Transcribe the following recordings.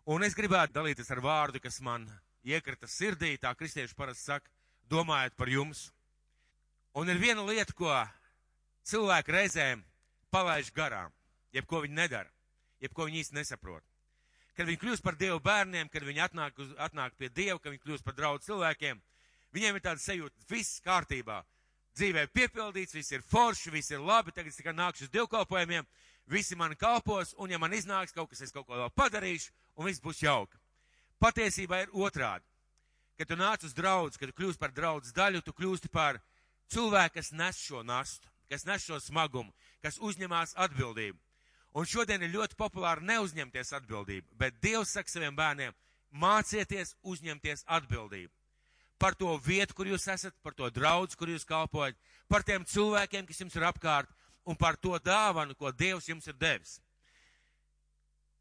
Un es gribētu dalīties ar vārdu, kas man iekrita sirdī, tā kristieši parasti saka, domājot par jums. Un ir viena lieta, ko cilvēki reizēm palaiž garām, jebko viņi nedara, jebko viņi īsti nesaprot. Kad viņi kļūst par Dievu bērniem, kad viņi atnāk pie Dieva, kad viņi kļūst par draugu cilvēkiem, viņiem ir tāda sajūta, viss kārtībā. Dzīvē piepildīts, viss ir forši, viss ir labi, tagad es tikai nākšu uz dievkalpojumiem, visi mani kalpos, un ja man iznāks kaut kas, es kaut ko vēl padarīšu, un viss būs jauki. Patiesībā ir otrādi. Kad tu nāc uz draudzi, kad tu kļūst par draudzes daļu, tu kļūsti par cilvēku, kas nes šo nastu, kas nes šo smagumu, kas uzņemās atbildību. Un šodien ir ļoti populāri neuzņemties atbildību, bet Dievs saka saviem bērniem, mācieties uzņemties atbildību. Par to vietu, kur jūs esat, par to draudzi, kur jūs kalpojat, par tiem cilvēkiem, kas jums ir apkārt, un par to dāvanu, ko Dievs jums ir devis.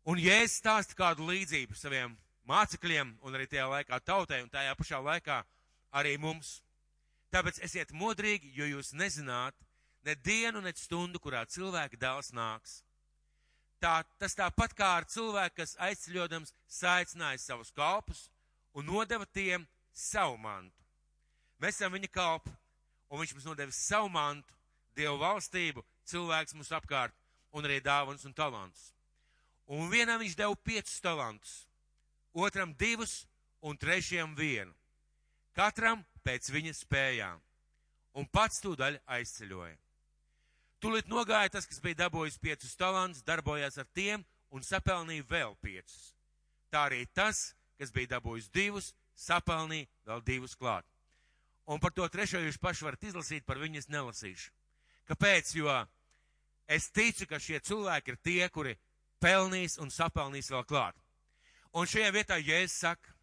Un Jēzus stāsta kādu līdzību saviem mācekļiem, un arī tajā laikā tautai, un tajā pašā laikā arī mums. Tāpēc esiet modrīgi, jo jūs nezināt ne dienu, ne stundu, kurā cilvēka dēls nāks. Tas tāpat kā ar cilvēku, kas aizceļodams saicināja savus kalpus un nodeva tiem savu mantu. Mēs esam viņa kalpi, un viņš mums nodevis savu mantu, Dievu valstību, cilvēks mums apkārt, un arī dāvanas un talantus. Un vienam viņš deva 5 talantus, otram 2 un trešajam 1. Katram pēc viņa spējām, un pats tūdaļ aizceļoja. Tūlīt nogāja tas, kas bija dabūjis 5 talantus, darbojās ar tiem un sapelnīja vēl 5. Tā arī tas, kas bija dabūjis 2, sapelnīja vēl 2 klāt. Un par to trešo jūs paši varat izlasīt, par viņu es nelasīšu. Kāpēc? Jo es ticu, ka šie cilvēki ir tie, kuri pelnīs un sapelnīs vēl klāt. Un šajā vietā Jēzus saka,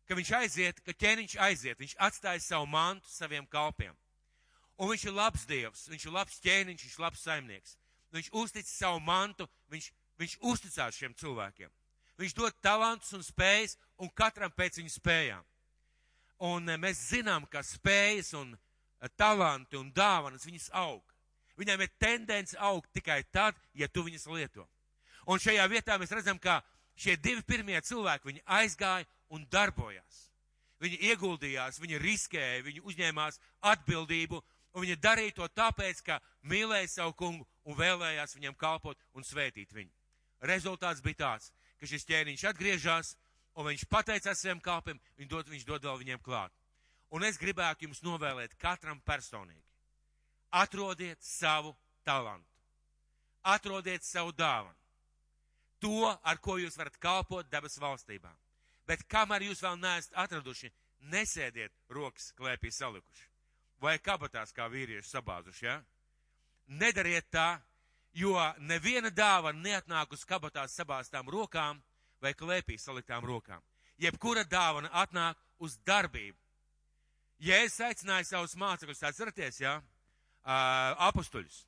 ka viņš aiziet, ka ķēniņš aiziet, viņš atstāja savu mantu saviem kalpiem. Un viņš ir labs Dievs, viņš ir labs ķēniņš, viņš ir labs saimnieks. Viņš uztic savu mantu, viņš uzticās šiem cilvēkiem. Viņš dod talantus un spējas, un katram pēc viņa spējām. Un mēs zinām, ka spējas un talanti un dāvanas viņas aug. Viņām ir tendence augt tikai tad, ja tu viņas lieto. Un šajā vietā mēs redzam, ka šie 2 pirmie cilvēki, viņi aizgāja un darbojās. Viņi ieguldījās, viņi riskēja, viņi uzņēmās atbildību, un viņi darīja to tāpēc, ka mīlēja savu kungu un vēlējās viņam kalpot un svētīt viņu. Rezultāts bija tāds, ka šis ķēniņš atgriežas, un viņš pateicās saviem kalpiem, viņš dod vēl viņiem klāt. Un es gribētu jums novēlēt katram personīgi. Atrodiet savu talantu. Atrodiet savu dāvanu. To, ar ko jūs varat kalpot debes valstībā. Bet kamēr jūs vēl neesat atraduši, nesēdiet rokas klēpī salikuši. Vai kabatās kā vīrieši sabāzuši, ja? Nedariet tā, jo neviena dāvana neatnāk uz kabatās sabāztām rokām vai klēpī saliktām rokām. Jebkura dāvana atnāk uz darbību. Jēzus aicināja savus mācekļus, atceraties, ja? Apustuļus.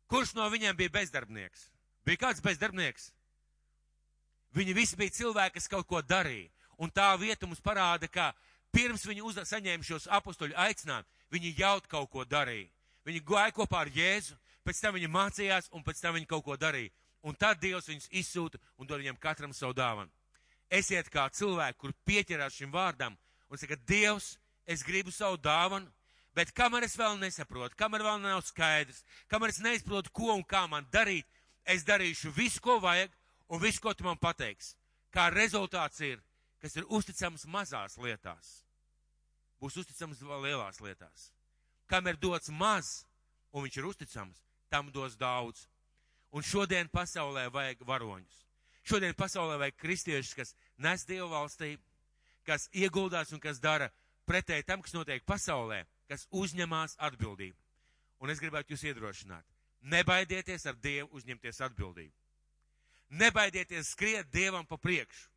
Kurš no viņiem bija bezdarbnieks? Bija kāds bezdarbnieks? Viņi visi bija cilvēki, kas kaut ko darīja. Un tā vieta mums parāda, ka pirms viņi saņēma šos apustuļu aicinājumu, viņi jau kaut ko darīja. Viņi gāja kopā ar Jēzu, pēc tam viņi mācījās un pēc tam viņi kaut ko darīja. Un tad Dievs viņus izsūta un dod viņiem katram savu dāvanu. Esiet kā cilvēki, kur pieķerās šim vārdam un saka, Dievs, es gribu savu dāvanu, bet kamēr es vēl nesaprotu, kamēr vēl nav skaidrs, kamēr es neizprotu, ko un kā man darīt, es darīšu visu, ko vajag un visu, ko tu man pateiksi. Kā rezultāts ir, kas ir uzticams mazās lietās, būs uzticams lielās lietās. Kam ir dots maz un viņš ir uzticams, tam dos daudz. Un šodien pasaulē vajag varoņus. Šodien pasaulē vajag kristiešus, kas nes Dievu valstību, kas ieguldās un kas dara pretēji tam, kas notiek pasaulē, kas uzņemās atbildību. Un es gribētu jūs iedrošināt. Nebaidieties ar Dievu uzņemties atbildību. Nebaidieties skriet Dievam pa priekšu.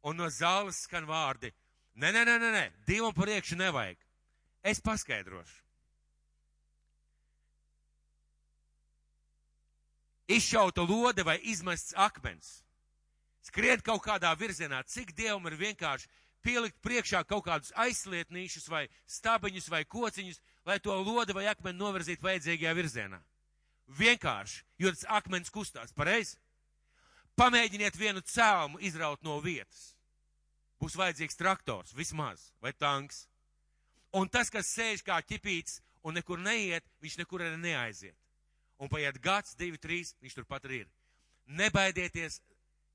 Un no zāles skan vārdi. Nē, Dievam pa priekšu nevajag. Es paskaidrošu. Izšauta lode vai izmests akmens. Skriet kaut kādā virzienā, cik Dievam ir vienkārši pielikt priekšā kaut kādus aizslietnīšus vai stabiņus vai kociņus, lai to lodi vai akmeni novirzītu vajadzīgajā virzienā. Vienkārši, jo tas akmens kustās, pareizi? Pamēģiniet vienu cēlumu izraut no vietas. Būs vajadzīgs traktors, vismaz, vai tanks. Un tas, kas sēž kā ķipīts un nekur neiet, viņš nekur arī neaiziet. Un paiet gads, 2, 3, viņš turpat arī ir. Nebaidieties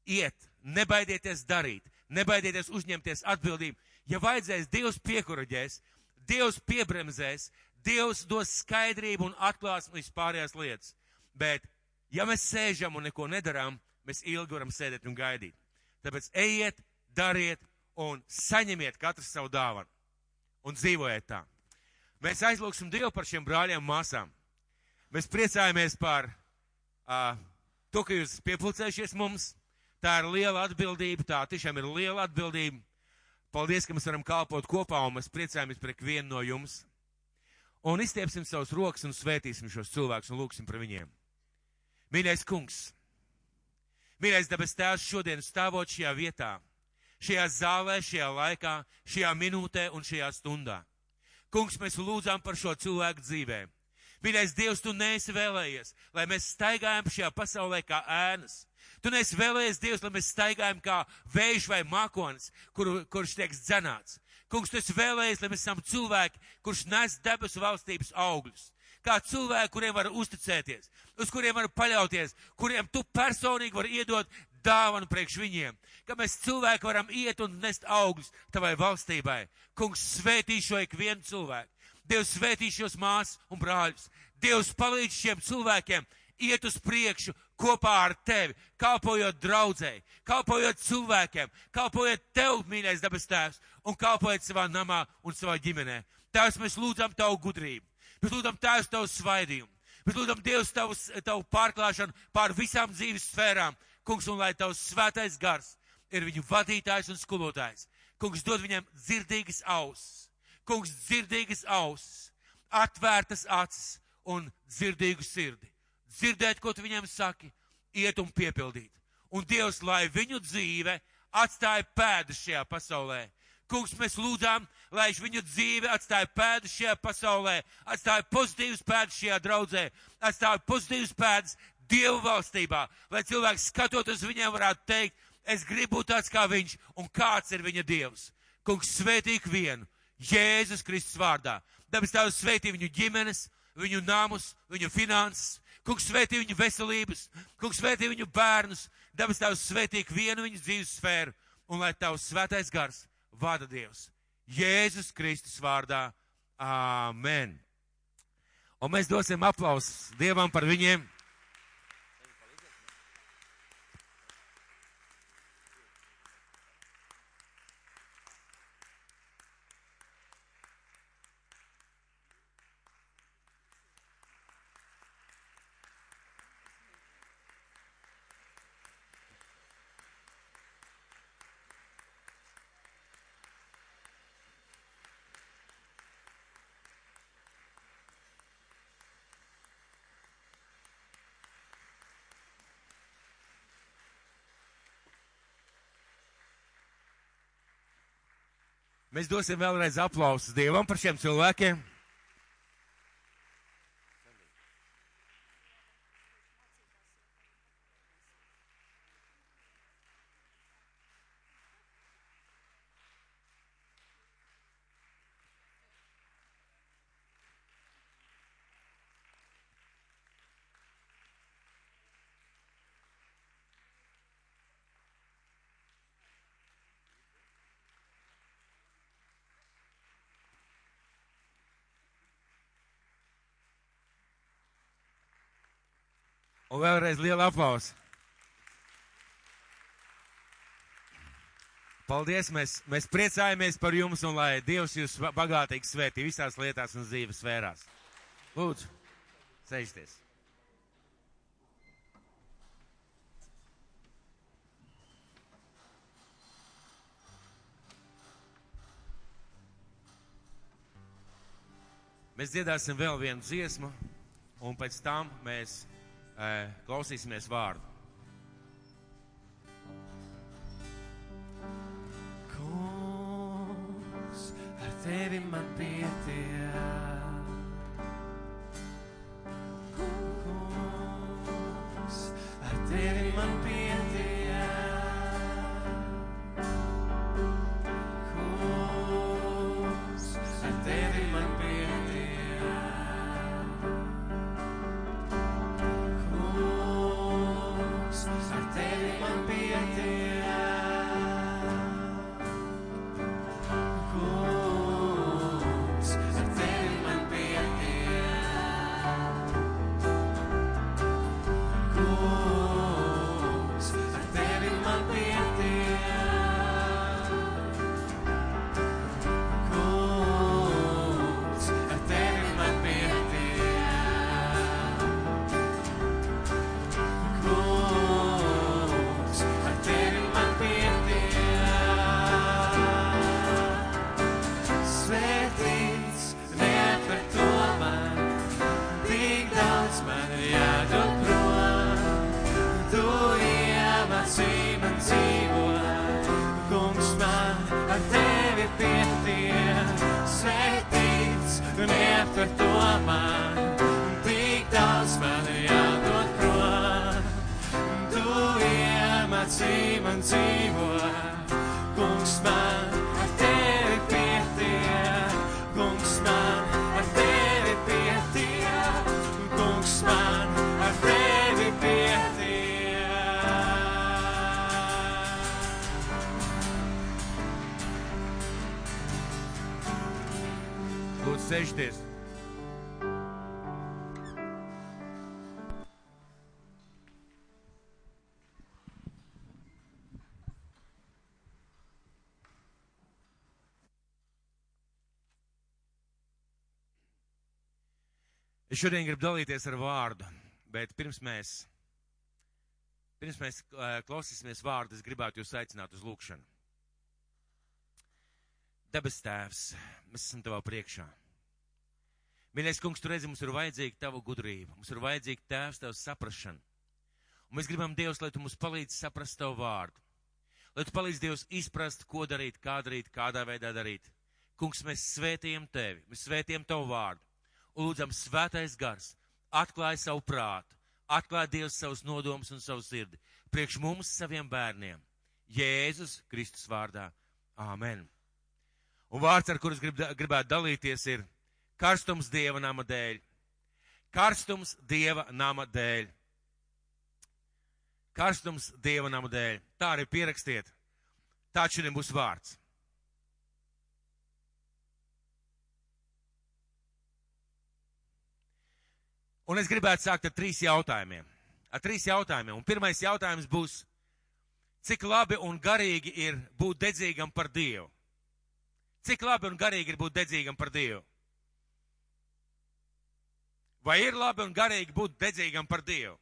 iet, nebaidieties darīt, nebaidieties uzņemties atbildību. Ja vajadzēs, Dievs piekuraģēs, Dievs piebremzēs, Dievs dos skaidrību un atklās vispārējās lietas. Bet, ja mēs sēžam un neko nedarām, mēs ilgi varam sēdēt un gaidīt. Tāpēc ejiet, dariet un saņemiet katrs savu dāvanu. Un dzīvojiet tā. Mēs aizlūksim Dievu par šiem brāļiem un māsām. Mēs priecājamies par to, ka jūs piepulcējušies mums. Tā ir liela atbildība, tā tiešām ir liela atbildība. Paldies, ka mēs varam kalpot kopā, un mēs priecājamies par ikvienu no jums. Un izstiepsim savus rokas un svētīsim šos cilvēkus un lūksim par viņiem. Mīļais kungs, mīļais debes tēvs, šodien stāvot šajā vietā, šajā zālē, šajā laikā, šajā minūtē un šajā stundā. Kungs, mēs lūdzām par šo cilvēku dzīvēm. Mīļais Dievs, tu neesi vēlējies, lai mēs staigājam šajā pasaulē kā ēnas. Tu neesi vēlējies, Dievs, lai mēs staigājam kā vējš vai mākonis, kurš tiek dzenāts. Kungs, tu esi vēlējies, lai mēs esam cilvēki, kurš nes debesu valstības augļus. Kā cilvēki, kuriem var uzticēties, uz kuriem var paļauties, kuriem tu personīgi var iedot dāvanu priekš viņiem. Ka mēs cilvēki varam iet un nest augļus tavai valstībai. Kungs, svētī šo ikvienu cilvēku. Dievs svētī šos māsas un brāļus. Dievs palīdz šiem cilvēkiem iet uz priekšu kopā ar tevi, kalpojot draudzēji, kalpojot cilvēkiem, kalpojot tev, mīļais debes tēvs, un kalpojot savā namā un savā ģimenē. Tēvs, mēs lūdzam tavu gudrību. Mēs lūdzam tēvs tavu svaidījumu. Mēs lūdzam Dievs tavu pārklāšanu pār visām dzīves sfērām. Kungs, un lai tavs svētais gars ir viņu vadītājs un skolotājs. Kungs, dod viņam dzirdīgas ausis. Kungs, dzirdīgas ausis, atvērtas acis un dzirdīgu sirdi. Dzirdēt, ko tu viņam saki, iet un piepildīt. Un Dievs, lai viņu dzīve atstāja pēdas šajā pasaulē. Kungs, mēs lūdzām, lai viņu dzīve atstāja pēdas šajā pasaulē, atstāja pozitīvas pēdas šajā draudzē, atstāja pozitīvas pēdas Dievu valstībā, lai cilvēks skatot uz viņiem varētu teikt, es gribu būt tāds kā viņš, un kāds ir viņa Dievs. Kungs, svētī vienu, Jēzus Kristus vārdā. Debes Tēvs, svētī viņu ģimenes, viņu namus, viņu finanses. Kungs, svētī viņu veselības. Kungs, svētī viņu bērnus. Debes Tēvs, svētī vienu viņu dzīves sfēru. Un lai Tavs svētais gars vada Dievs. Jēzus Kristus vārdā. Āmen. Un mēs dosim aplausus Dievam par viņiem. Mēs dosim vēlreiz aplausus Dievam par šiem cilvēkiem. Un vēlreiz liela aplausa. Paldies, mēs priecājamies par jums un lai Dievs jūs bagātīgi svētī visās lietās un dzīves sfērās. Lūdzu, sēžties. Mēs dziedāsim vēl vienu dziesmu un pēc tam mēs klausīsimies vārdu. Kungs, ar tevi man pietiek. Kungs, ar tevi man pietiek. mācī man dzīvot, kungs man ar tevi pietiek, kungs man ar tevi pietiek, kungs man ar tevi pietiek. Lūdzu, sēžties. Es šodien gribu dalīties ar vārdu, bet pirms mēs klausīsimies vārdu, es gribētu jūs aicināt uz lūkšanu. Debes Tēvs, mēs esam Tavā priekšā. Mīļais kungs, tu redzi, mums ir vajadzīga Tava gudrība, mums ir vajadzīga Tēvs, Tavs saprašana. Un mēs gribam, Dievs, lai Tu mums palīdzi saprast Tavu vārdu. Lai Tu palīdzi, Dievs, izprast, ko darīt, kādā veidā darīt. Kungs, mēs svētījam Tevi, mēs svētījam Tavu vārdu. Un lūdzam, svētais gars, atklāj savu prātu, atklāj Dievs savus nodomus un savu sirdi, priekš mums, saviem bērniem, Jēzus Kristus vārdā. Āmen. Un vārds, ar kurus gribētu dalīties, ir karstums Dieva nama dēļ. Karstums Dieva nama dēļ. Karstums Dieva nama dēļ. Tā arī pierakstiet. Tā šodien būs vārds. Un es gribētu sākt ar 3 jautājumiem. Un pirmais jautājums būs, cik labi un garīgi ir būt dedzīgam par Dievu? Cik labi un garīgi ir būt dedzīgam par Dievu? Vai ir labi un garīgi būt dedzīgam par Dievu?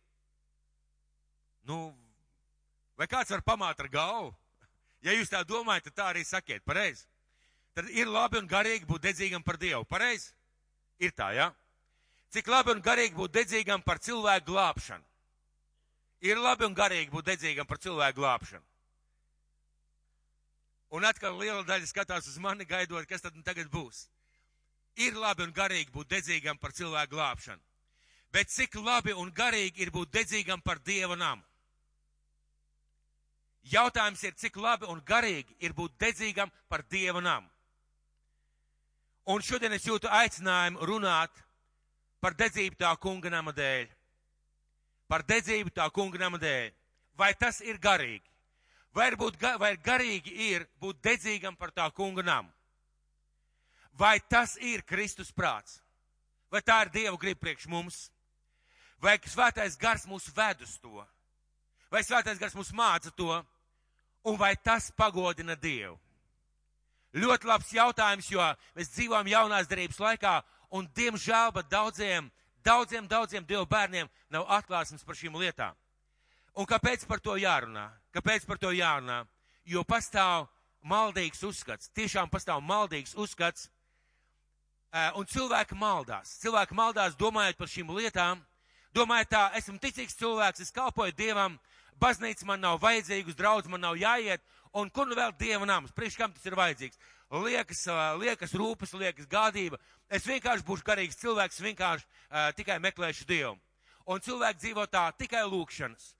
Vai kāds var pamāt ar galvu? Ja jūs tā domājat, tad tā arī sakiet, pareizi? Tad ir labi un garīgi būt dedzīgam par Dievu, pareizi? Ir tā, jā? Ja? Cik labi un garīgi būt dedzīgam par cilvēku glābšanu? Ir labi un garīgi būt dedzīgam par cilvēku glābšanu. Un atkal liela daļa skatās uz mani, gaidot, kas tad tagad būs. Ir labi un garīgi būt dedzīgam par cilvēku glābšanu. Bet cik labi un garīgi ir būt dedzīgam par Dieva namu? Jautājums ir, cik labi un garīgi ir būt dedzīgam par Dieva namu? Un šodien es jūtu aicinājumu runāt par dedzību tā kunga nama dēļ. Par dedzību tā kunga nama dēļ. Vai tas ir garīgi? Vai garīgi ir būt dedzīgam par tā kunga namu? Vai tas ir Kristus prāts? Vai tā ir Dieva griba priekš mums? Vai svētais gars mūs ved uz to? Vai svētais gars mūs māca to? Un vai tas pagodina Dievu? Ļoti labs jautājums, jo mēs dzīvojam jaunās derības laikā, un diemžēl, bet daudziem Dieva bērniem nav atklāsmes par šīm lietām. Un kāpēc par to jārunā? Jo pastāv maldīgs uzskats, tiešām pastāv maldīgs uzskats, un cilvēki maldās domājot par šīm lietām, domājot tā, esmu ticīgs cilvēks, es kalpoju Dievam, baznīca man nav vajadzīga, uz draudzi man nav jāiet, un kur nu vēl Dieva nams, priekš kam tas ir vajadzīgs? Liekas rūpes, liekas gādība. Es vienkārši būšu garīgs cilvēks, vienkārši tikai meklēšu Dievu. Un cilvēki dzīvo tā, tikai lūkšanas,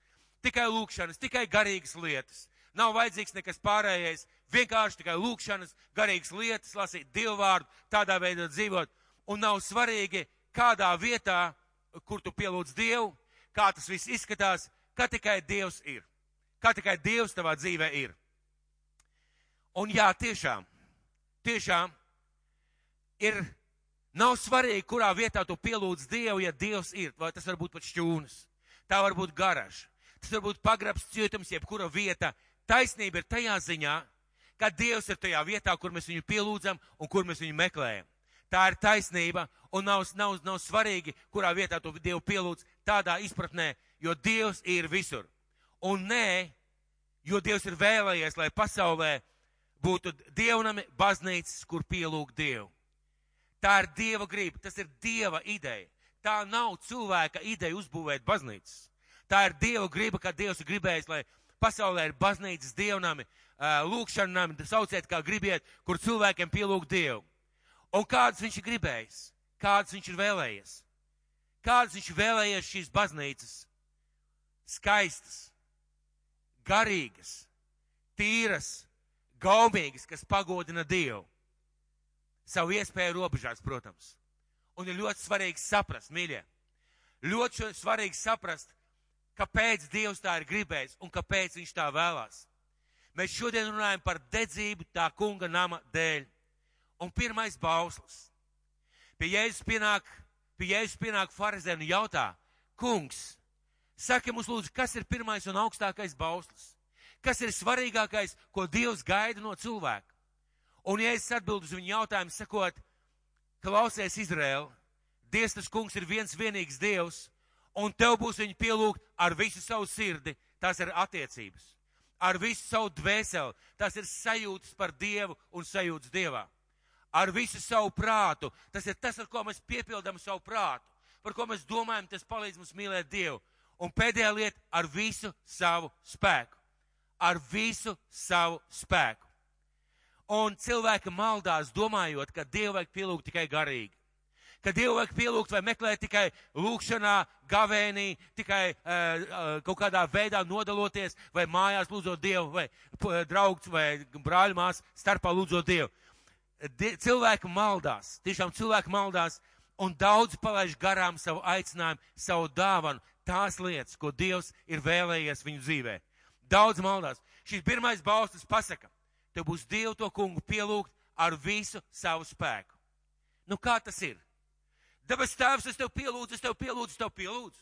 tikai garīgas lietas. Nav vajadzīgs nekas pārējais, vienkārši tikai lūkšanas, garīgas lietas, lasīt Dievu vārdu, tādā veidā dzīvot. Un nav svarīgi, kādā vietā, kur tu pielūdz Dievu, kā tas viss izskatās, kā tikai Dievs ir. Kā tikai Dievs tavā dzīvē ir. Un jā, tiešām nav svarīgi, kurā vietā tu pielūdz Dievu, ja Dievs ir, vai tas var būt pat šķūnas, tā var būt garaža, tas var būt pagrabs, cietums, jebkura vieta. Taisnība ir tajā ziņā, ka Dievs ir tajā vietā, kur mēs viņu pielūdzam un kur mēs viņu meklējam. Tā ir taisnība, un nav svarīgi, kurā vietā tu Dievu pielūdz tādā izpratnē, jo Dievs ir visur. Un nē, jo Dievs ir vēlējies, lai pasaulē būtu dievnami, baznīcas, kur pielūgt Dievu. Tā ir Dieva griba, tas ir Dieva ideja. Tā nav cilvēka ideja uzbūvēt baznīcas. Tā ir Dieva griba, ka Dievs ir gribējis, lai pasaulē ir baznīcas, dievnami, lūkšanami, sauciet kā gribiet, kur cilvēkiem pielūgt Dievu. Un kādas viņš ir gribējis? Kādas viņš ir vēlējies? Kādas viņš ir vēlējies šīs baznīcas? Skaistas, garīgas, tīras, gaumīgas, kas pagodina Dievu. Savu iespēju robežās, protams. Un ir ļoti svarīgi saprast, mīļie, ļoti svarīgi saprast, kāpēc Dievs tā ir gribējis un kāpēc viņš tā vēlās. Mēs šodien runājam par dedzību tā kunga nama dēļ. Un pirmais bauslis. Pie Jēzus pienāk farizēni un jautā, kungs, saki mums lūdzu, kas ir pirmais un augstākais bauslis? Kas ir svarīgākais, ko Dievs gaida no cilvēka? Un Jēzus atbild uz viņu jautājumu, sakot, klausies Izraēl, Dievs tas kungs ir viens vienīgs Dievs, un tev būs viņu pielūgt ar visu savu sirdi, tās ir attiecības. Ar visu savu dvēseli, tās ir sajūtas par Dievu un sajūtas Dievā. Ar visu savu prātu, tas ir tas, ar ko mēs piepildām savu prātu, par ko mēs domājam, tas palīdz mums mīlēt Dievu. Un pēdējā lieta, ar visu savu spēku. Ar visu savu spēku. Un cilvēki maldās domājot, ka Dievu vajag pielūgt tikai garīgi. Ka Dievu vajag pielūgt vai meklēt tikai lūkšanā, gavēnī, tikai kaut kādā veidā nodaloties, vai mājās lūdzot Dievu, vai draugs vai brāļmās starpā lūdzot Dievu. Cilvēki maldās, tiešām cilvēki maldās, un daudz palaiž garām savu aicinājumu, savu dāvanu, tās lietas, ko Dievs ir vēlējies viņu dzīvē. Daudz maldās. Šis pirmais bauslis pasaka, tev būs Dievu to kungu pielūgt ar visu savu spēku. Nu kā tas ir? Debes Tēvs, es tev pielūdzu.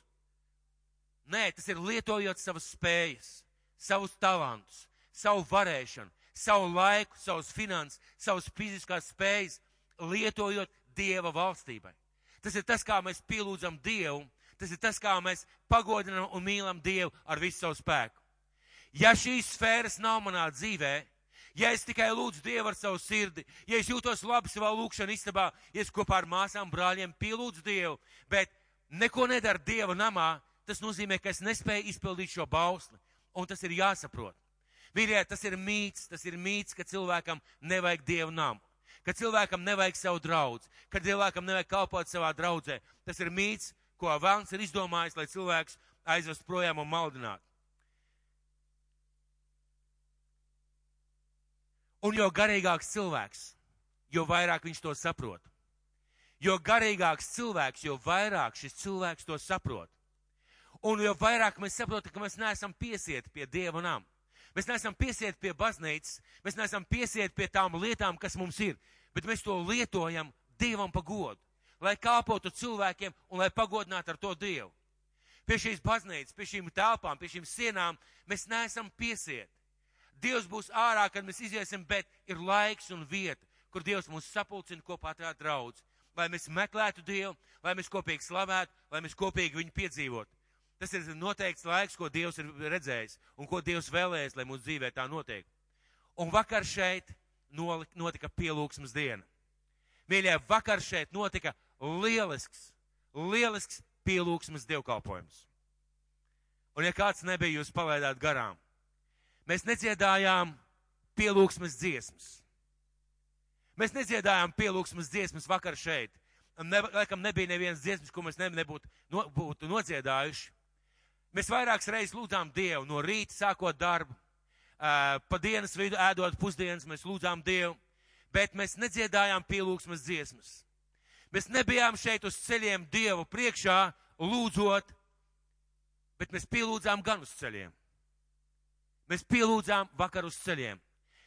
Nē, tas ir lietojot savas spējas, savus talantus, savu varēšanu, savu laiku, savus finanses, savus fiziskās spējas, lietojot Dieva valstībai. Tas ir tas, kā mēs pielūdzam Dievu, tas ir tas, kā mēs pagodinam un mīlam Dievu ar visu savu spēku. Ja šīs sfēras nav manā dzīvē, ja es tikai lūdzu Dievu ar savu sirdi, ja es jūtos labi savā lūkšana istabā, ja es kopā ar māsām, brāļiem pielūdzu Dievu, bet neko nedara Dieva namā, tas nozīmē, ka es nespēju izpildīt šo bausli, un tas ir jāsaprot. Mīļie, tas ir mīts, ka cilvēkam nevajag Dievu namu, ka cilvēkam nevajag savu draudzi, ka cilvēkam nevajag kalpot savā draudzē. Tas ir mīts, ko Velns ir izdomājis, lai cilvēks aizvest projām un maldinātu. Un jo garīgāks cilvēks, jo vairāk viņš to saprot. Jo garīgāks cilvēks, jo vairāk šis cilvēks to saprot. Un jo vairāk mēs saprotam, ka mēs neesam piesieti pie Dieva nama. Mēs neesam piesieti pie baznīcas, mēs neesam piesieti pie tām lietām, kas mums ir, bet mēs to lietojam Dievam pa godu, lai kalpotu cilvēkiem un lai pagodinātu ar to Dievu. Pie šīs baznīcas, pie šīm telpām, pie šīm sienām mēs neesam piesieti. Dievs būs ārā, kad mēs iziesim, bet ir laiks un vieta, kur Dievs mūs sapulcina kopā tā draudz, lai mēs meklētu Dievu, lai mēs kopīgi slavētu, lai mēs kopīgi viņu piedzīvotu. Tas ir noteikts laiks, ko Dievs ir redzējis un ko Dievs vēlējies, lai mūsu dzīvē tā notiek. Un vakar šeit notika pielūgsmes diena. Mīļie, vakar šeit notika lielisks pielūgsmes dievkalpojums. Un ja kāds nebija, jūs palaidāt garām. Mēs nedziedājām pielūgsmes dziesmas. Mēs nedziedājām pielūgsmes dziesmas vakar šeit. Laikam nebija nevienas dziesmas, ko mēs nebūtu nodziedājuši. Mēs vairākas reizes lūdzām Dievu, no rīta sākot darbu, pa dienas vidu ēdot pusdienas, mēs lūdzām Dievu, bet mēs nedziedājām pielūgsmes dziesmas. Mēs nebijām šeit uz ceļiem Dievu priekšā lūdzot, bet mēs pielūdzām gan uz ceļiem. Mēs pielūdzām vakar uz ceļiem.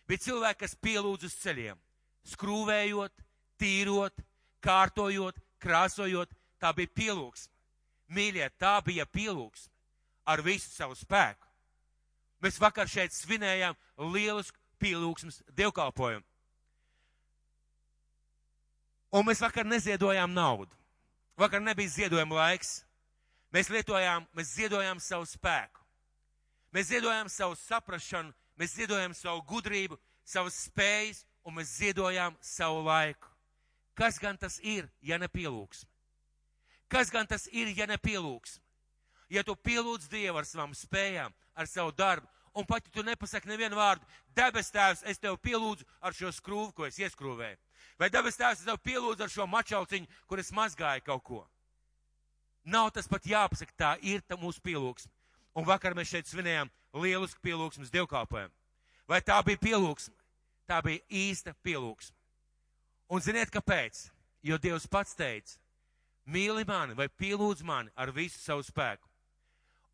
Bija cilvēki, kas pielūdz uz ceļiem, skrūvējot, tīrot, kārtojot, krāsojot, tā bija pielūgsme. Mīļie, tā bija pielūgsme ar visu savu spēku. Mēs vakar šeit svinējām lielisku pielūgsmes dievkalpojumu. Un mēs vakar neziedojām naudu. Vakar nebija ziedojuma laiks. Mēs ziedojām savu spēku. Mēs ziedojām savu saprašanu, mēs ziedojām savu gudrību, savas spējas, un mēs ziedojām savu laiku. Kas gan tas ir, ja ne pielūgsme? Kas gan tas ir, ja ne pielūgsme? Ja tu pielūdz Dievu ar savām spējām, ar savu darbu, un pat ja tu nepasaki nevienu vārdu, debes Tēvs, es tev pielūdzu ar šo skrūvu, ko es ieskrūvēju. Vai debes Tēvs, es tev pielūdzu ar šo mačauciņu, kur es mazgāju kaut ko. Nav tas pat jāpasaka, tā ir mūsu pielūgsme. Un vakar mēs šeit svinējām lielisku pielūgsmes dievkalpojumu. Vai tā bija pielūgsme? Tā bija īsta pielūgsme. Un ziniet, kāpēc? Jo Dievs pats teica, mīli mani vai pielūdz mani ar visu savu spēku.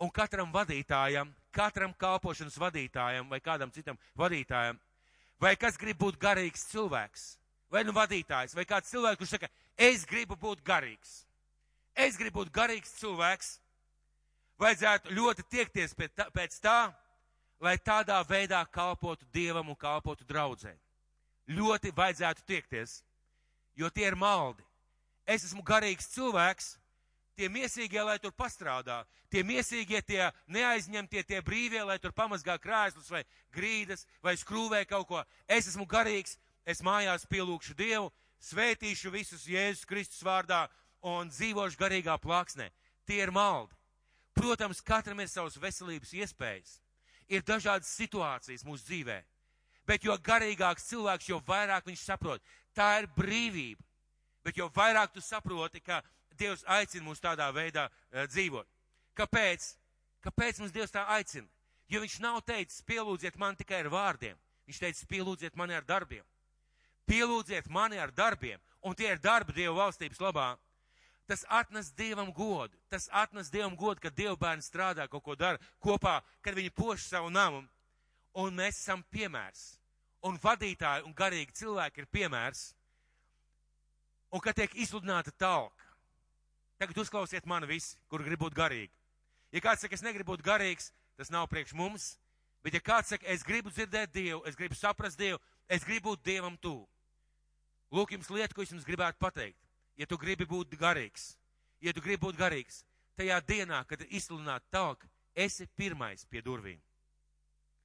Un katram vadītājam, katram kalpošanas vadītājam vai kādam citam vadītājam, vai kas grib būt garīgs cilvēks, vai nu vadītājs, vai kāds cilvēks, kurš saka, es gribu būt garīgs. Es gribu būt garīgs cilvēks, vajadzētu ļoti tiekties pēc tā, lai tādā veidā kalpotu Dievam un kalpotu draudzē. Ļoti vajadzētu tiekties, jo tie ir maldi. Es esmu garīgs cilvēks, tie miesīgie, lai tur pastrādā, tie miesīgie, tie neaizņemtie, tie brīvie, lai tur pamazgā krēslus vai grīdas vai skrūvē kaut ko. Es esmu garīgs, es mājās pielūkšu Dievu, svētīšu visus Jēzus Kristus vārdā un dzīvošu garīgā plāksnē. Tie ir maldi. Protams, katram ir savas veselības iespējas. Ir dažādas situācijas mūsu dzīvē. Bet jo garīgāks cilvēks, jo vairāk viņš saprot. Tā ir brīvība. Bet jo vairāk tu saproti, ka Dievs aicina mūs tādā veidā dzīvot. Kāpēc? Kāpēc mums Dievs tā aicina? Jo viņš nav teicis, pielūdziet mani tikai ar vārdiem. Viņš teica, pielūdziet mani ar darbiem. Pielūdziet mani ar darbiem. Un tie ir darbi Dieva valstības labā. Tas atnes Dievam godu. Tas atnes Dievam godu, kad Dieva bērni strādā, kaut ko dara kopā, kad viņi poš savu namu. Un mēs esam piemērs. Un vadītāji un garīgi cilvēki ir piemērs. Un kad tiek izsludināta talka. Tagad uzklausiet mani visi, kur grib būt garīgi. Ja kāds saka, es negribu būt garīgs, tas nav priekš mums. Bet ja kāds saka, es gribu dzirdēt Dievu, es gribu saprast Dievu, es gribu būt Dievam tuvu. Lūk, jums lieta, ko es jums gribētu pateikt. Ja tu gribi būt garīgs, tajā dienā, kad ir izsludināta talka, esi pirmais pie durvīm.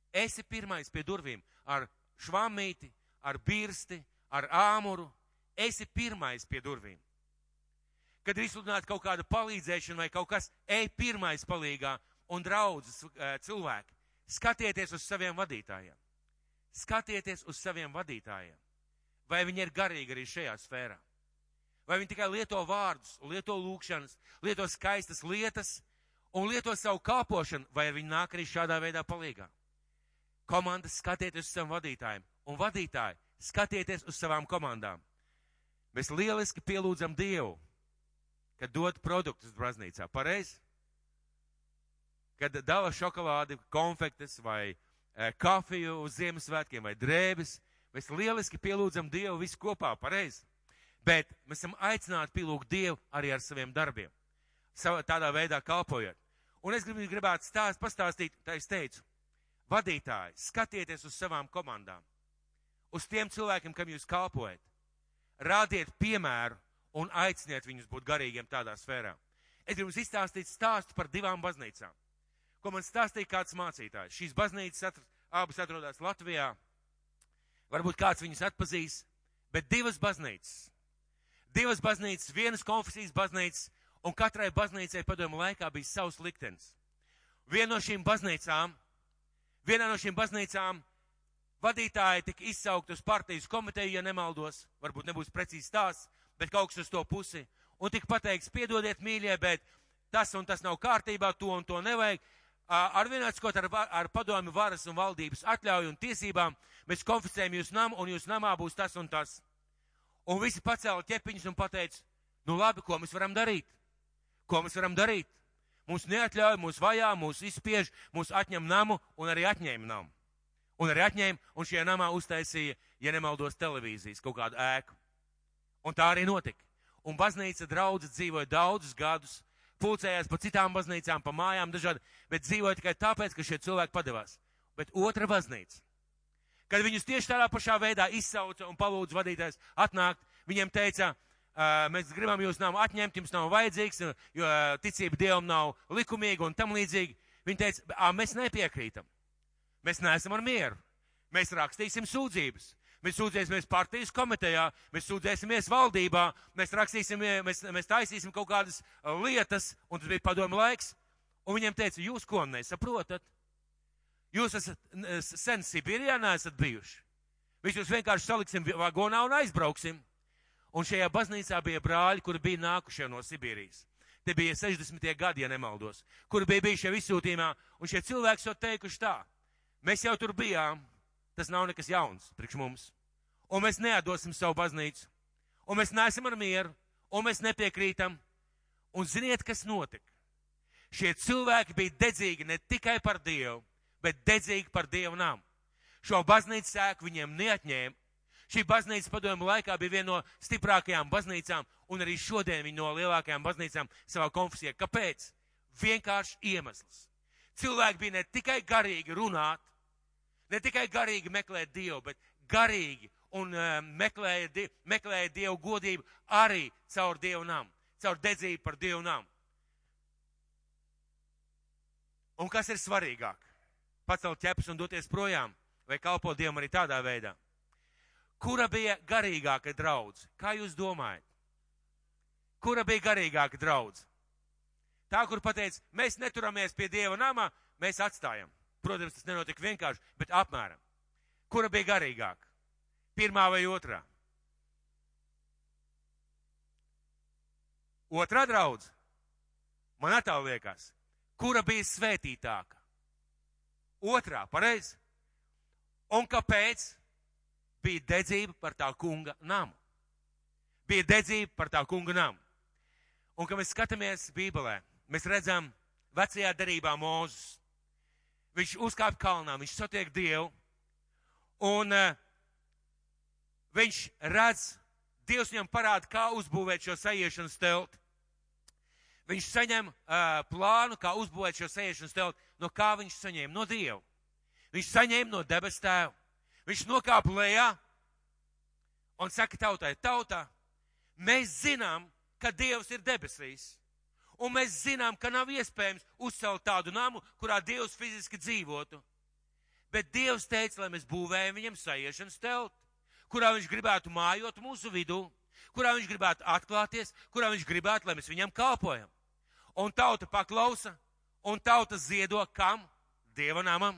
Esi pirmais pie durvīm ar švamīti, ar birsti, ar āmuru. Esi pirmais pie durvīm. Kad ir izsludināta kaut kāda palīdzēšana vai kaut kas, ej pirmais palīgā un draudzes cilvēki. Skatieties uz saviem vadītājiem. Skatieties uz saviem vadītājiem. Vai viņi ir garīgi arī šajā sfērā? Vai viņi tikai lieto vārdus, lieto lūkšanas, lieto skaistas lietas un lieto savu kalpošanu, vai viņi nāk arī šādā veidā palīgā? Komandas, skatieties uz saviem vadītājiem. Un vadītāji, skatieties uz savām komandām. Mēs lieliski pielūdzam Dievu, kad dod produktus baznīcā. Pareizi? Kad dala šokolādi, konfektes vai kafiju uz Ziemassvētkiem vai drēbes, mēs lieliski pielūdzam Dievu visu kopā. Pareizi? Bet mēs esam aicināti pielūgt Dievu arī ar saviem darbiem. Tādā veidā kalpojot. Un es gribētu pastāstīt, tā es teicu, vadītāji, skatieties uz savām komandām. Uz tiem cilvēkiem, kam jūs kalpojat. Rādiet piemēru un aiciniet viņus būt garīgiem tādā sfērā. Es gribu jums izstāstīt stāstu par 2 baznīcām, ko man stāstīja kāds mācītājs. Šīs baznīcas abas atrodas Latvijā. Varbūt kāds viņus atpazīs, bet 2 baznīcas. 2 baznīcas, vienas konfesijas baznīcas, un katrai baznīcai padomu laikā bija savs liktenis. Vienā no šīm baznīcām vadītāji tika izsaukti uz partijas komiteju, ja nemaldos, varbūt nebūs precīzi stāsts, bet kaut kas uz to pusi, un tika pateikts, piedodiet mīļie, bet tas un tas nav kārtībā, to un to nevajag. Ar vienāds, ar padomi varas un valdības atļauju un tiesībām, mēs konfiscējam jūs namu, un jūs namā būs tas un tas. Un visi pacēla ķepiņus un pateica, nu labi, ko mēs varam darīt? Ko mēs varam darīt? Mūs neatļauj, mūs vajā, mūs izspiež, mūs atņem namu un arī atņēma namu. Un arī atņēma, un šajā namā uztaisīja, ja nemaldos, televīzijas kaut kādu ēku. Un tā arī notika. Un baznīca draudze dzīvoja daudzus gadus, pulcējās pa citām baznīcām, pa mājām dažādi, bet dzīvoja tikai tāpēc, ka šie cilvēki padevās. Bet otra baznīca, kad viņus tieši tādā pašā veidā izsauca un palūdza vadītājs atnākt, viņiem teica, mēs gribam jūs namu atņemt, jums nav vajadzīgs, jo ticība Dievam nav likumīga un tam līdzīgi. Viņi teica, mēs nepiekrītam. Mēs neesam ar mieru. Mēs rakstīsim sūdzības. Mēs sūdzēsimies partijas komitejā, mēs sūdzēsimies valdībā, mēs taisīsim kaut kādas lietas, un tas bija padomu laiks. Un viņiem teica, jūs ko nesaprotat? Jūs esat sen Sibīrijā neesat bijuši. Mēs jūs vienkārši saliksim vagonā un aizbrauksim. Un šajā baznīcā bija brāļi, kuri bija nākušie no Sibīrijas. Te bija 60. gadi, ja nemaldos, kuri bija bijuši jau izsūtījumā, un šie cilvēki jau teikuši tā. Mēs jau tur bijām, tas nav nekas jauns priekš mums. Un mēs neatdosim savu baznīcu, un mēs neesam ar mieru, un mēs nepiekrītam. Un ziniet, kas notika? Šie cilvēki bija dedzīgi ne tikai par Dievu, bet dedzīgi par Dievu namu. Šo baznīcas ēku viņiem neatņēma. Šī baznīca padomju laikā bija viena no stiprākajām baznīcām, un arī šodien viņa no lielākajām baznīcām savā konfesijā. Kāpēc? Vienkārši iemesls. Cilvēki bija ne tikai garīgi runāt, ne tikai garīgi meklēt Dievu, bet garīgi un meklēja Dievu godību arī caur Dievu namu, caur dedzību par Dievu namu. Un kas ir svarīgāk? Pacelt ķepus un doties projām, vai kalpot Dievam arī tādā veidā? Kura bija garīgāka draudze? Kā jūs domājat? Kura bija garīgāka draudze? Tā, kur pateica, mēs neturamies pie Dieva namā, mēs atstājam. Protams, tas nenotika vienkārši, bet apmēram. Kura bija garīgāka? Pirmā vai otrā? Otrā draudze? Man atāl liekas. Kura bija svētītāka? Otrā, pareizi? Un kāpēc? Bija dedzība par tā kunga namu. Bija dedzība par tā kunga namu. Un, kad mēs skatāmies Bībelē, mēs redzam vecajā derībā Mūzes. Viņš uzkāp kalnā, viņš satiek Dievu, un viņš redz, Dievs viņam parāda, kā uzbūvēt šo sajiešanas telti. Viņš saņem plānu, kā uzbūvēt šo sajiešanas telti. No kā viņš saņēma? No Dieva. Viņš saņēma no debes tēva. Viņš nokāpa lejā un saka tautai, tautā, mēs zinām, ka Dievs ir debesīs. Un mēs zinām, ka nav iespējams uzcelt tādu namu, kurā Dievs fiziski dzīvotu. Bet Dievs teica, lai mēs būvējam viņam sajiešanas telti, kurā viņš gribētu mājot mūsu vidū, kurā viņš gribētu atklāties, kurā viņš gribētu, lai mēs viņam kalpojam. Un tauta paklausa, un tauta ziedo kam? Dieva namam.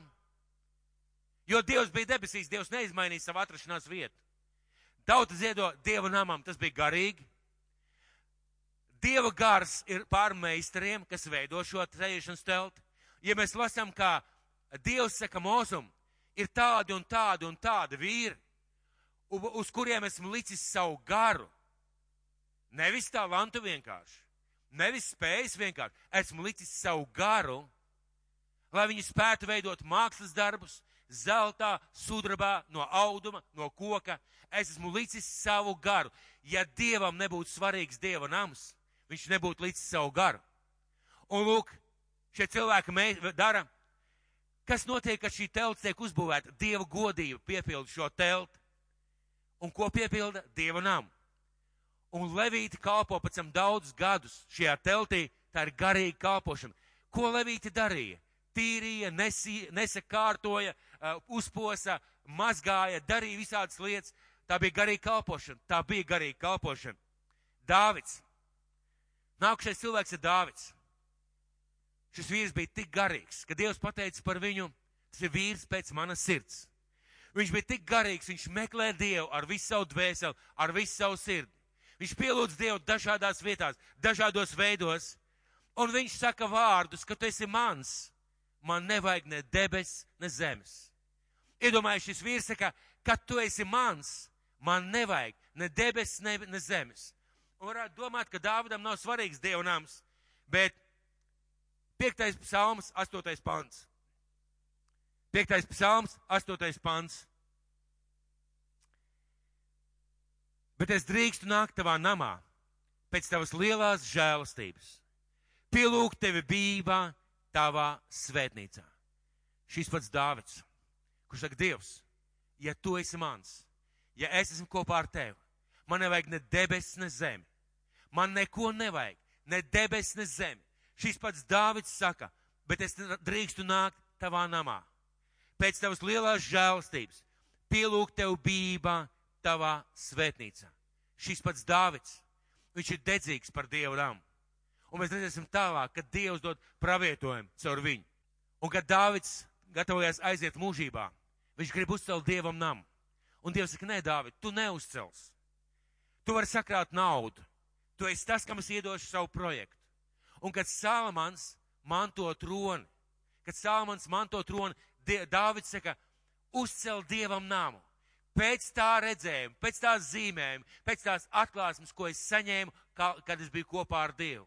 Jo Dievs bija debesīs, Dievs neizmainīja savu atrašanās vietu. Tauta ziedo Dieva namam, tas bija garīgi. Dieva gars ir pār meistariem, kas veido šo sajiešanas telti. Ja mēs lasām, kā Dievs saka Mūzum, ir tādi un tādi un tādi vīri, uz kuriem esmu licis savu garu. Nevis talantu vienkārši, nevis spējas vienkārši, esmu licis savu garu, lai viņi spētu veidot mākslas darbus, zeltā, sudrabā, no auduma, no koka. Es esmu licis savu garu. Ja Dievam nebūtu svarīgs Dieva nams, viņš nebūtu licis savu garu. Un lūk, šie cilvēki dara, kas notiek, kad šī telts tiek uzbūvēta. Dieva godība piepilda šo telti. Un ko piepilda? Dieva namu. Un levīti kalpo pēc tam daudzus gadus šajā teltī, tā ir garīga kalpošana. Ko levīti darīja? Tīrīja, nesakārtoja, uzposa, mazgāja, darīja visādas lietas. Tā bija garīga kalpošana. Dāvids. Nākušais cilvēks ir Dāvids. Šis vīrs bija tik garīgs, ka Dievs pateica par viņu, tas ir vīrs pēc manas sirds. Viņš bija tik garīgs, viņš meklē Dievu ar visu savu dvēseli, ar visu savu sirdi. Viņš pielūdz Dievu dažādās vietās, dažādos veidos, un viņš saka vārdus, ka tu esi mans. Man nevajag ne debes, ne zemes. Iedomājies, šis vīrs saka, ka tu esi mans, man nevajag ne debes, ne zemes. Un varētu domāt, ka Dāvidam nav svarīgs Dieva nams, bet 5. psalms, 8. pants. 5. psalms, 8. pants. Bet es drīkstu nākt tavā namā pēc tavas lielās žēlastības. Pielūgt tevi bībā tavā svētnīcā. Šis pats Dāvids, kurš saka, Dievs, ja tu esi mans, ja es esmu kopā ar tevi, man nevajag ne debes, ne zemi. Man neko nevajag, ne debes, ne zemi. Šis pats Dāvids saka, bet es drīkstu nākt tavā namā. Pēc tavas lielās žēlastības, pielūgt tev bībā tavā svētnīcā. Šis pats Dāvids, viņš ir dedzīgs par Dievu namu. Un mēs redzēsim tālāk, kad Dievs dod pravietojumu caur viņu. Un kad Dāvids gatavojas aiziet mūžībā, viņš grib uzcelt Dievam namu. Un Dievs saka, nē, Dāvid, tu neuzcels. Tu vari sakrāt naudu. Tu esi tas, kam es iedošu savu projektu. Un kad Salamans manto troni, Dāvids saka, uzcel Dievam namu. Pēc tā redzējuma, pēc tās zīmējuma, pēc tās atklāsmes, ko es saņēmu, kad es biju kopā ar Dievu.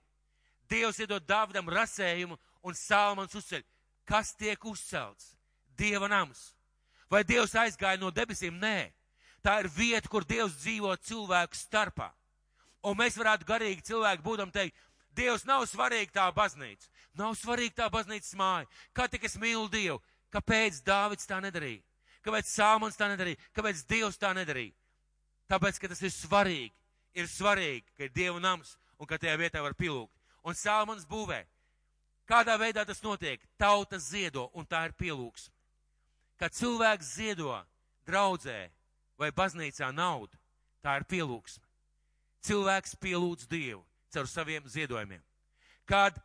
Dievs iedod Dāvidam rasējumu un Salamans uzceļ. Kas tiek uzcelts? Dieva nams. Vai Dievs aizgāja no debesīm? Nē. Tā ir vieta, kur Dievs dzīvo cilvēku starpā. Un mēs varētu garīgi cilvēki būdam teikt, Dievs nav svarīgi tā baznīca. Nav svarīgi tā baznīcas māja. Kā tik es mīlu Dievu? Kāpēc Dāvids tā nedarīja? Kāpēc Salamans tā nedarīja? Kāpēc Dievs tā nedarīja? Tāpēc, ka tas ir svarīgi. Ir svarīgi, ka ir Dieva nams un ka tajā vietā var pilūkt. Un Salamans būvē. Kādā veidā tas notiek? Tauta ziedo un tā ir pielūgsme. Kad cilvēks ziedo draudzē vai baznīcā naudu, tā ir pielūgsme. Cilvēks pielūdz Dievu caur saviem ziedojumiem. Kad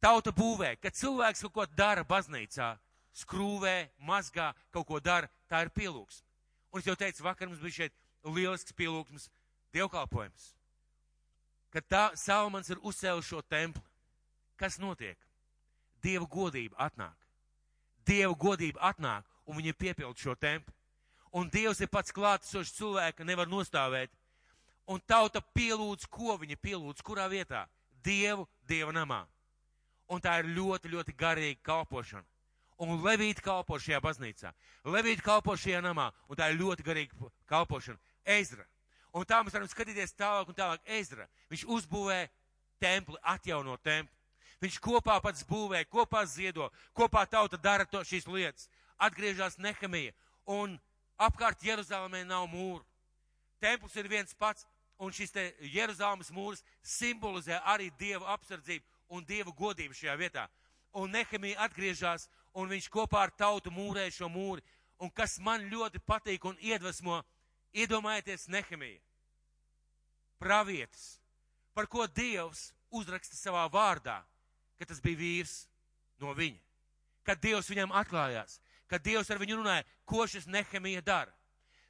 tauta būvē, kad cilvēks kaut ko dara baznīcā, skrūvē, mazgā, kaut ko dara, tā ir pielūgsme. Un es jau teicu, vakar mums bija šeit lielisks pielūgsmes dievkalpojums. Kad Salamans ir uzcēlis šo templi, kas notiek? Dieva godība atnāk. Dieva godība atnāk, un viņi piepild šo templi. Un Dievs ir pats klātesošs cilvēka, nevar nostāvēt. Un tauta pielūdz, ko viņa pielūdz, kurā vietā? Dievu, Dieva namā. Un tā ir ļoti, ļoti garīga kalpošana. Un Levīti kalpo šajā baznīcā. Levīti kalpo šajā namā, un tā ir ļoti garīga kalpošana. Ezra. Un tā mēs varam skatīties tālāk un tālāk. Ezra. Viņš uzbūvē templi, atjauno templi. Viņš kopā pats būvē, kopā ziedo, kopā tauta dara šīs lietas. Atgriežas Nehemija, un apkārt Jeruzalemē nav mūru. Templis ir viens pats, un šis te Jeruzalemes mūrs simbolizē arī Dieva apsardzību un Dieva godību šajā vietā. Un Nehemija atgriežas, un viņš kopā ar tautu mūrē šo mūri. Un kas man ļoti patīk un iedvesmo, iedomājieties Nehemija, pravietis, par ko Dievs uzraksta savā vārdā, ka tas bija vīrs no viņa. Kad Dievs viņam atklājās, kad Dievs ar viņu runāja, ko šis Nehemija dara.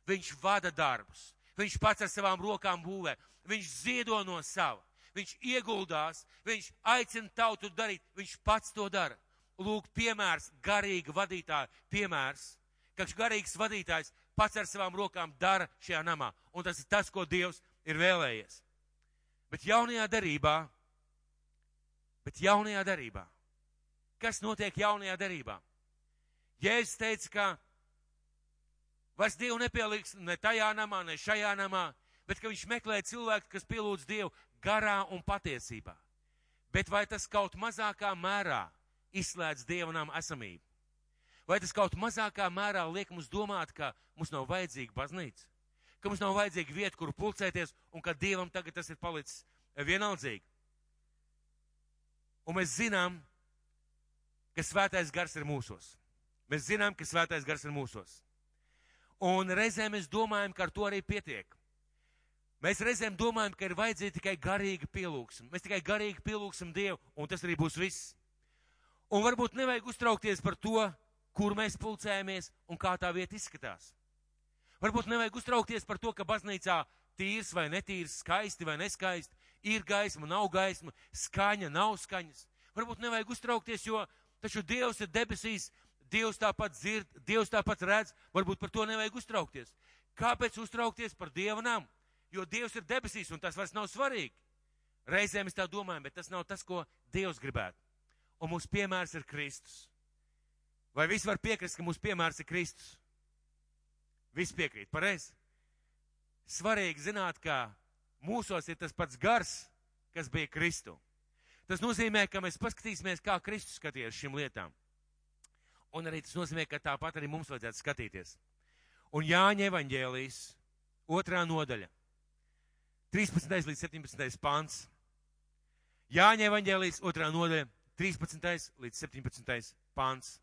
Viņš vada darbus, viņš pats ar savām rokām būvē, viņš ziedo no sava, viņš ieguldās, viņš aicina tautu darīt, viņš pats to dara. Lūk, piemērs, garīga vadītāja piemērs, ka garīgs vadītājs pats ar savām rokām dara šajā namā. Un tas ir tas, ko Dievs ir vēlējies. Bet jaunajā darībā, kas notiek jaunajā darībā? Jēzus teica, ka vairs Dievu nepieliks ne tajā namā, ne šajā namā, bet ka viņš meklē cilvēku, kas pielūdz Dievu garā un patiesībā. Bet vai tas kaut mazākā mērā izslēdz Dieva nama esamību? Vai tas kaut mazākā mērā liek mums domāt, ka mums nav vajadzīga baznīca? Ka mums nav vajadzīga vieta, kur pulcēties, un ka Dievam tagad tas ir palicis vienaldzīgi? Un mēs zinām, ka Svētais Gars ir mūsos. Mēs zinām, ka Svētais Gars ir mūsos. Un reizēm mēs domājam, ka ar to arī pietiek. Mēs reizēm domājam, ka ir vajadzīga tikai garīga pielūgsme. Mēs tikai garīgi pielūgsim Dievu, un tas arī būs viss. Un varbūt nevajag uztraukties par to, kur mēs pulcējamies un kā tā vieta izskatās. Varbūt nevajag uztraukties par to, ka baznīcā tīrs vai netīrs, skaisti vai neskaisti, ir gaisma, nav gaisma, skaņa, nav skaņas. Varbūt nevajag uztraukties, jo taču Dievs ir debesīs, Dievs tāpat dzird, Dievs tāpat redz, varbūt par to nevajag uztraukties. Kāpēc uztraukties par Dieva namu? Jo Dievs ir debesīs un tas vairs nav svarīgi. Reizēm mēs tā domājam, bet tas nav tas, ko Dievs gribētu. Un mūsu piemērs ir Kristus. Vai visi var piekrist, ka mūsu piemērs ir Kristus? Visi piekrīt, pareizi. Svarīgi zināt, ka mūsos ir tas pats gars, kas bija Kristu. Tas nozīmē, ka mēs paskatīsimies, kā Kristus skaties šīm lietām. Un arī tas nozīmē, ka tāpat arī mums vajadzētu skatīties. Un Jāņa evaņģēlijas 2. nodaļa, 13. līdz 17. pants. Jāņa evaņģēlijas 2. nodaļa, 13. līdz 17. pants.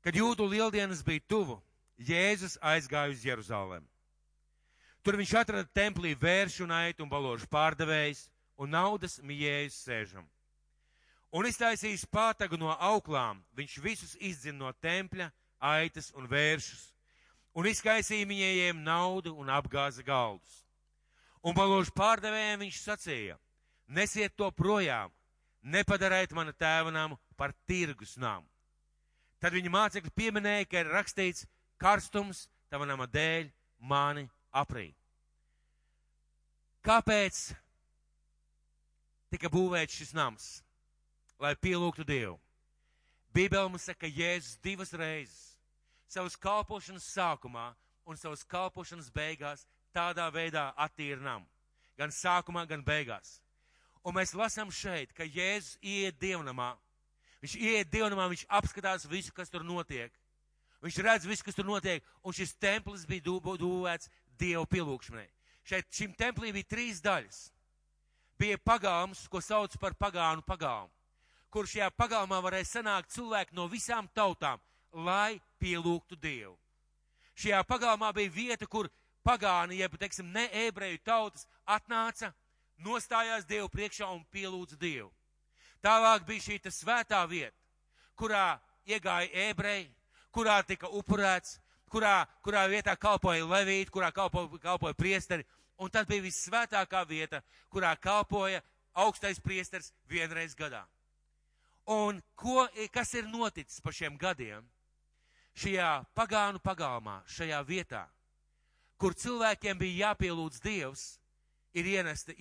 Kad Jūdu lieldienas bija tuvu, Jēzus aizgāja uz Jeruzalem. Tur viņš atrada templī vēršu un aitu un baložu pārdevējs un naudas mijējus sēžam. Un iztaisījis pātagu no auklām, viņš visus izdzina no tempļa, aitas un vēršus, un izkaisīja mijējiem naudu un apgāza galdus. Un balūžu pārdevējiem viņš sacīja, nesiet to projām, nepadariet mana tēva namu par tirgus namu. Tad viņa mācekļi pieminēja, ka ir rakstīts, karstums tava nama dēļ mani aprī. Kāpēc tika būvēts šis nams? Lai pielūgtu Dievu. Bībele mums saka, ka Jēzus 2 reizes savas kalpošanas sākumā un savas kalpošanas beigās tādā veidā attīra namu. Gan sākumā, gan beigās. Un mēs lasām šeit, ka Jēzus ieiet dievnamā. Viņš ieiet dievnamā, viņš apskatās visu, kas tur notiek. Viņš redz visu, kas tur notiek, un šis templis bija būvēts Dievu pielūgšanai. Šim templī bija 3 daļas. Bija pagalms, ko sauc par pagānu pagalmu, kur šajā pagalmā varēja sanākt cilvēki no visām tautām, lai pielūgtu Dievu. Šajā pagalmā bija vieta, kur pagāni, jeb, teiksim, ne ebreju tautas atnāca, nostājās Dievu priekšā un pielūdza Dievu. Tālāk bija šī svētā vieta, kurā iegāja ebreji, kurā tika upurēts, kurā vietā kalpoja levīti, kurā kalpoja priesteri, un tad bija vissvētākā vieta, kurā kalpoja augstais priesteris 1 reizi gadā. Un kas ir noticis pa šiem gadiem? Šajā pagānu pagalmā, šajā vietā, kur cilvēkiem bija jāpielūdz Dievs, ir ievesti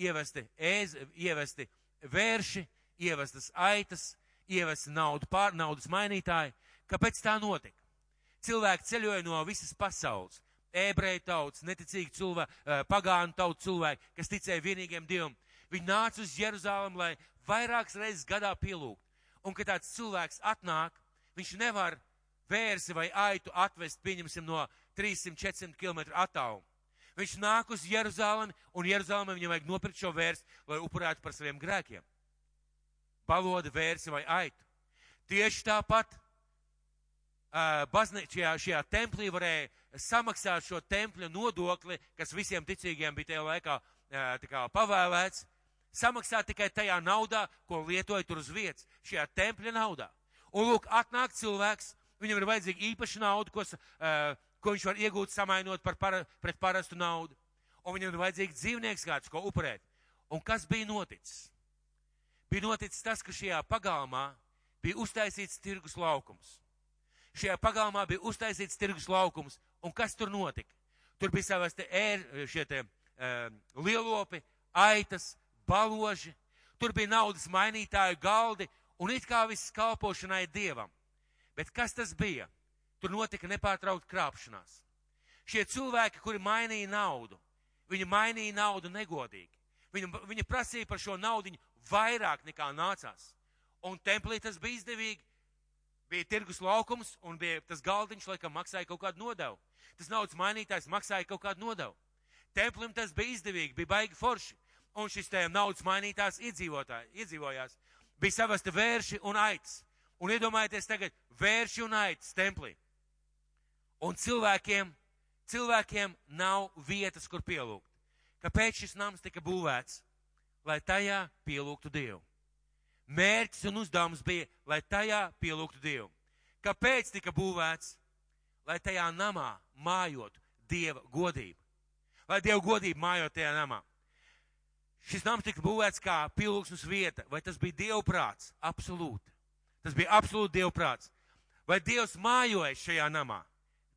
vērši, ievestas aitas, ievesti naudas mainītāji. Kāpēc tā notika? Cilvēki ceļoja no visas pasaules. Ebreju tautas, neticīgi cilvēki, pagānu tautu cilvēki, kas ticēja vienīgiem Dievam. Viņi nāca uz Jeruzalem, lai vairākas reizes gadā pielūgt. Un, kad tāds cilvēks atnāk, viņš nevar vērsi vai aitu atvest, pieņemsim, no 300-400 km attālumu. Viņš nāk uz Jeruzalemi, un Jeruzalemē viņam vajag nopirkt šo vērsi, lai upurētu par saviem grēkiem. Baloda, vērsi vai aitu. Tieši tāpat šajā templī varēja samaksāt šo tempļa nodokli, kas visiem ticīgiem bija tajā laikā pavēlēts, samaksāt tikai tajā naudā, ko lietoja tur uz vietas, šajā tempļa naudā. Un lūk, atnāk cilvēks, viņam ir vajadzīga īpaša nauda, ko viņš var iegūt samainot pret parastu naudu. Un viņam ir vajadzīgs dzīvnieks kāds, ko upurēt. Un kas bija noticis? Bija noticis tas, ka šajā pagalmā bija uztaisīts tirgus laukums. Šajā pagalmā bija uztaisīts tirgus laukums, un kas tur notika? Tur bija savas lielopi, aitas, baloži, tur bija naudas mainītāju galdi, un it kā viss kalpošanai Dievam. Bet kas tas bija? Tur notika nepārtraukta krāpšanās. Šie cilvēki, kuri mainīja naudu, viņi mainīja naudu negodīgi. Viņi prasīja par šo naudiņu vairāk nekā nācās. Un templī tas bija izdevīgi. Bija tirgus laukums un bija tas galdiņš, laikam maksāja kaut kādu nodevu. Tas naudas mainītājs maksāja kaut kādu nodevu. Templim tas bija izdevīgi, bija baigi forši. Un šis naudas mainītājs iedzīvojās. Bija savasti vērši un aitas. Un iedomājieties tagad vērši un aitas templī. Un cilvēkiem nav vietas, kur pielūgt. Kāpēc šis nams tika būvēts? Lai tajā pielūgtu Dievu. Mērķis un uzdevums bija, lai tajā pielūgtu Dievu. Kāpēc tika būvēts? Lai tajā namā mājotu Dieva godība. Lai Dieva godība mājot tajā namā. Šis nams tika būvēts kā pielūgsmes vieta. Vai tas bija Dieva prāts? Absolūti. Tas bija absolūti Dieva prāts. Vai Dievs mājoja šajā namā?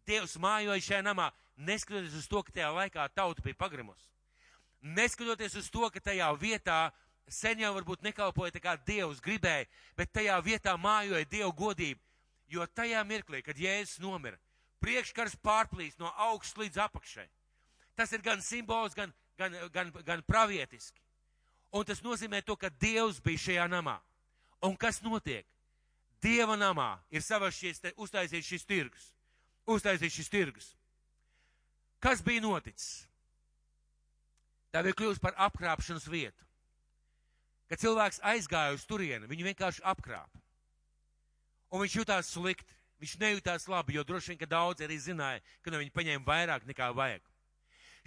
Dievs mājoja šajā namā, neskatoties uz to, ka tajā laikā tauta bija pagrimusi. Neskatoties uz to, ka tajā vietā sen jau varbūt nekalpoja tā kā Dievs gribēja, bet tajā vietā mājoja Dieva godība, jo tajā mirklī, kad Jēzus nomira, priekškars pārplīst no augšas līdz apakšai. Tas ir gan simbols, gan pravietiski. Un tas nozīmē to, ka Dievs bija šajā namā. Un kas notiek? Dieva namā ir uztaisīts šis tirgus. Kas bija noticis? Tā bija kļūst par apkrāpšanas vietu. Kad cilvēks aizgāja uz turieni, viņu vienkārši apkrāpa. Un viņš jutās slikti, viņš nejūtās labi, jo droši vien, ka daudz arī zināja, ka no viņa paņēma vairāk nekā vajag.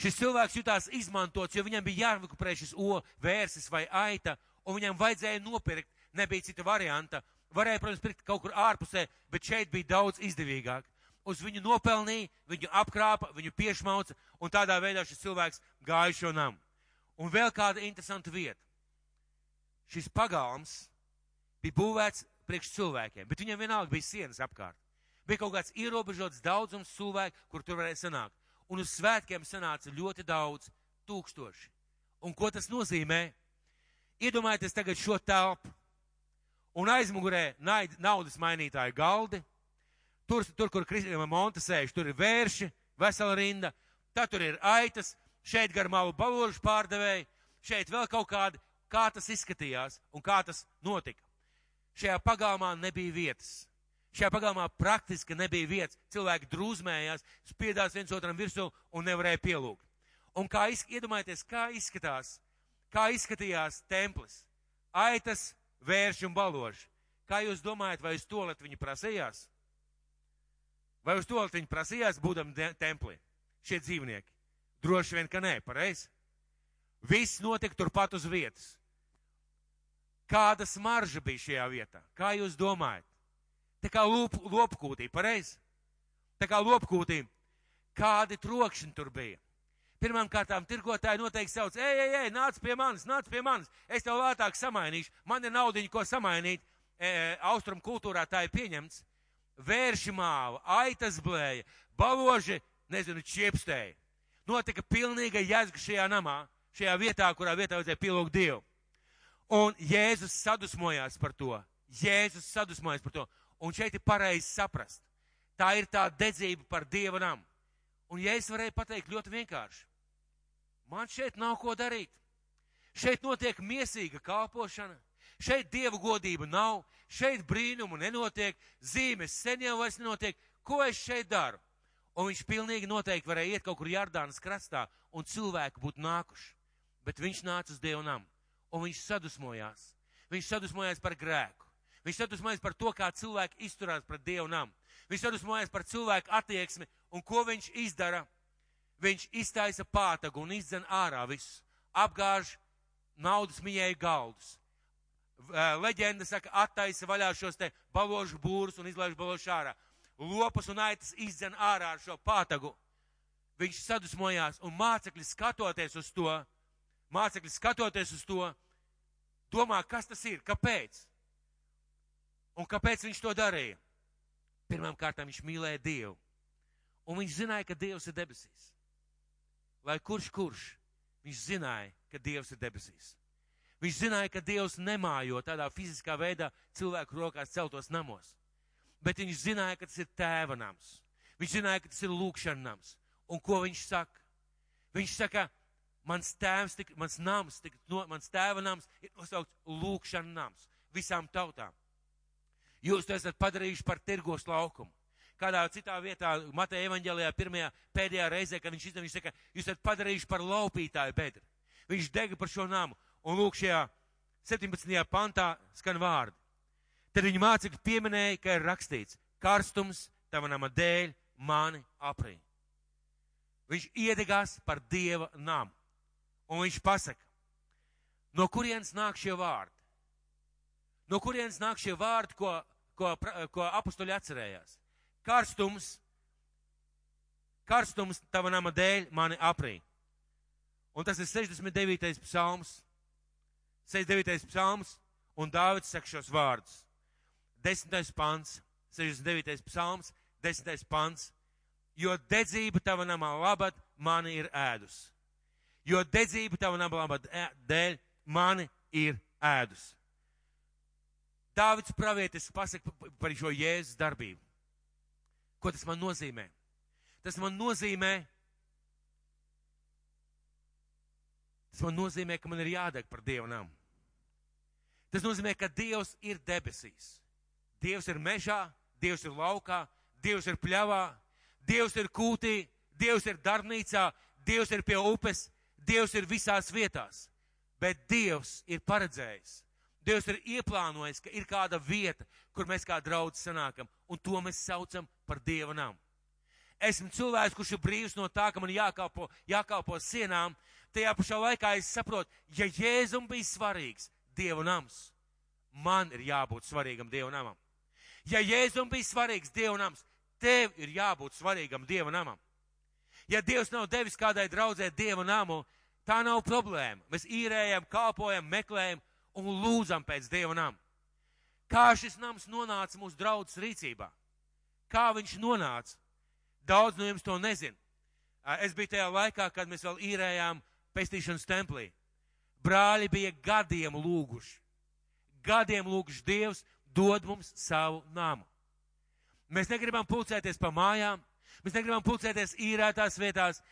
Šis cilvēks jutās izmantots, jo viņam bija jārekurē šis vērsis vai aita, un viņam vajadzēja nopirkt, nebija cita varianta. Varēja, protams, pirkt kaut kur ārpusē, bet šeit bija daudz izdevīgāk. Uz viņu nopelnīja, viņu apkrāpa, viņu piešmauca, un tādā veidā šis cilvēks gāja šo namu. Un vēl kāda interesanta vieta. Šis pagalms bija būvēts priekš cilvēkiem, bet viņam vienalga bija sienas apkārt. Bija kaut kāds ierobežots daudzums cilvēku, kur tur varēja sanākt. Un uz svētkiem sanāca ļoti daudz, 1000. Un ko tas nozīmē? Iedomājieties tagad šo telpu. Un aizmugurē naudas mainītāju galdi. Tur, kur Monta sēž, tur ir vērši, vesela rinda. Tad tur ir aitas, šeit gar malu baložu pārdevēji, šeit vēl kaut kādi, kā tas izskatījās un kā tas notika. Šajā pagalmā nebija vietas. Šajā pagalmā praktiski nebija vietas. Cilvēki drūzmējās, spiedās viens otram virsū un nevarēja pielūgt. Un iedomājieties, kā izskatījās templis. Aitas, vērši un baloži. Kā jūs domājat, vai uz toaletu viņi prasījās? Vai uz toaletu viņi prasījās, būdami templī? Šie dzīvnieki. Droši vien, ka nē, pareizi. Viss notika turpat uz vietas. Kāda smarža bija šajā vietā? Kā jūs domājat? Tā kā lopkūtī, pareizi? Tā kā lopkūtī. Kādi trokšņi tur bija? Pirmām kārtām tirgotāji noteikti sauc, ej, nāc pie manis, es tev lētāk samainīšu, man ir naudiņa, ko samainīt. Austrum kultūrā tā ir pieņemts. Vērši māva, aitas blēja, baloži, čiepstēja. Notika pilnīga jēzga šajā namā, šajā vietā, kurā vietā vajadzēja pielūgt Dievu. Un Jēzus sadusmojās par to. Un šeit ir pareizi saprast. Tā ir tā dedzība par Dieva namu. Un Jēzus varēja pateikt ļoti vienkārši. Man šeit nav ko darīt. Šeit notiek miesīga kalpošana. Šeit Dieva godība nav. Šeit brīnumu nenotiek. Zīmes sen jau vairs nenotiek. Ko es šeit daru? Un viņš pilnīgi noteikti varēja iet kaut kur Jordānas krastā un cilvēki būtu nākuši. Bet viņš nāca uz Dieva namu. Un viņš sadusmojās. Viņš sadusmojās par grēku. Viņš sadusmojās par to, kā cilvēki izturās pret Dievu namu. Viņš sadusmojās par cilvēku attieksmi. Un ko viņš izdara? Viņš iztaisa pātagu un izdzen ārā visus. Apgāž naudas mījēju galdus. Leģenda saka, attaisa vaļā šos te baložu būrus un izlaiž baložu ārā. Lopas un aitas izdzen ārā ar šo pātagu. Viņš sadusmojās un mācekļi skatoties uz to, domā, kas tas ir, kāpēc? Un kāpēc viņš to darīja? Pirmām kārtām viņš mīlēja Dievu. Un viņš zināja, ka Dievs ir debesīs. Lai kurš, viņš zināja, ka Dievs ir debesīs. Viņš zināja, ka Dievs nemājo tādā fiziskā veidā cilvēku rokās celtos namos. Bet viņš zināja, ka tas ir tēva nams. Viņš zināja, ka tas ir lūkšana nams. Un ko viņš saka? Viņš saka, mans tēva nams ir nosaukts lūkšana nams visām tautām. Jūs to esat padarījuši par tirgos laukumu. Kādā citā vietā, Mateja evaņģēlijā, pēdējā reizē, kad viņš izdevās, viņš saka, jūs esat padarījuši par laupītāju bedri. Viņš dega par šo namu. Un lūk, šajā 17. pantā skan vārdi. Tad viņa mācekļi pieminēja, ka ir rakstīts, karstums tava nama dēļ mani aprī. Viņš iedegās par Dieva namu. Un viņš pasaka, no kurienes nāk šie vārdi? No kurienes nāk šie vārdi, ko apustuļi atcerējās? Karstums tava nama dēļ mani aprī. Un tas ir 69. psalms. 69. psalms, un Dāvids saka šos vārdus. 10. pants, 69. psalms, 10. pants. Jo dedzība tava nama labad mani ir ēdus. Jo dedzība tava nama labad dēļ mani ir ēdus. Dāvids pravietis pasaka par šo Jēzus darbību. Ko tas man nozīmē? Tas man nozīmē, ka man ir jādeg par Dievu namu. Tas nozīmē, ka Dievs ir debesīs. Dievs ir mežā, Dievs ir laukā, Dievs ir pļavā, Dievs ir kūtī, Dievs ir darbnīcā, Dievs ir pie upes, Dievs ir visās vietās. Bet Dievs ir paredzējis. Dievs ir ieplānojis, ka ir kāda vieta, kur mēs kā draudzi sanākam, un to mēs saucam par Dieva namu. Esmu cilvēks, kurš ir brīvs no tā, ka man jākalpo sienām. Tajā pašā laikā es saprotu, ja Jēzum bija svarīgs Dieva nams, man ir jābūt svarīgam Dieva namam. Ja Jēzum bija svarīgs Dieva nams, tev ir jābūt svarīgam Dieva namam. Ja Dievs nav devis kādai draudzē Dieva namu, Tā nav problēma. Mēs īrējam, kalpojam, meklējam un lūdzam pēc Dieva nama. Kā šis nams nonāca mūsu draudzes rīcībā? Kā viņš nonāca? Daudz no jums to nezin. Es biju tajā laikā, kad mēs vēl īrējām pestīšanas templī. Brāļi bija gadiem lūguši. Gadiem lūguši Dievs dod mums savu namu. Mēs negribam pulcēties pa mājām, mēs negribam pulcēties īrētās vietās.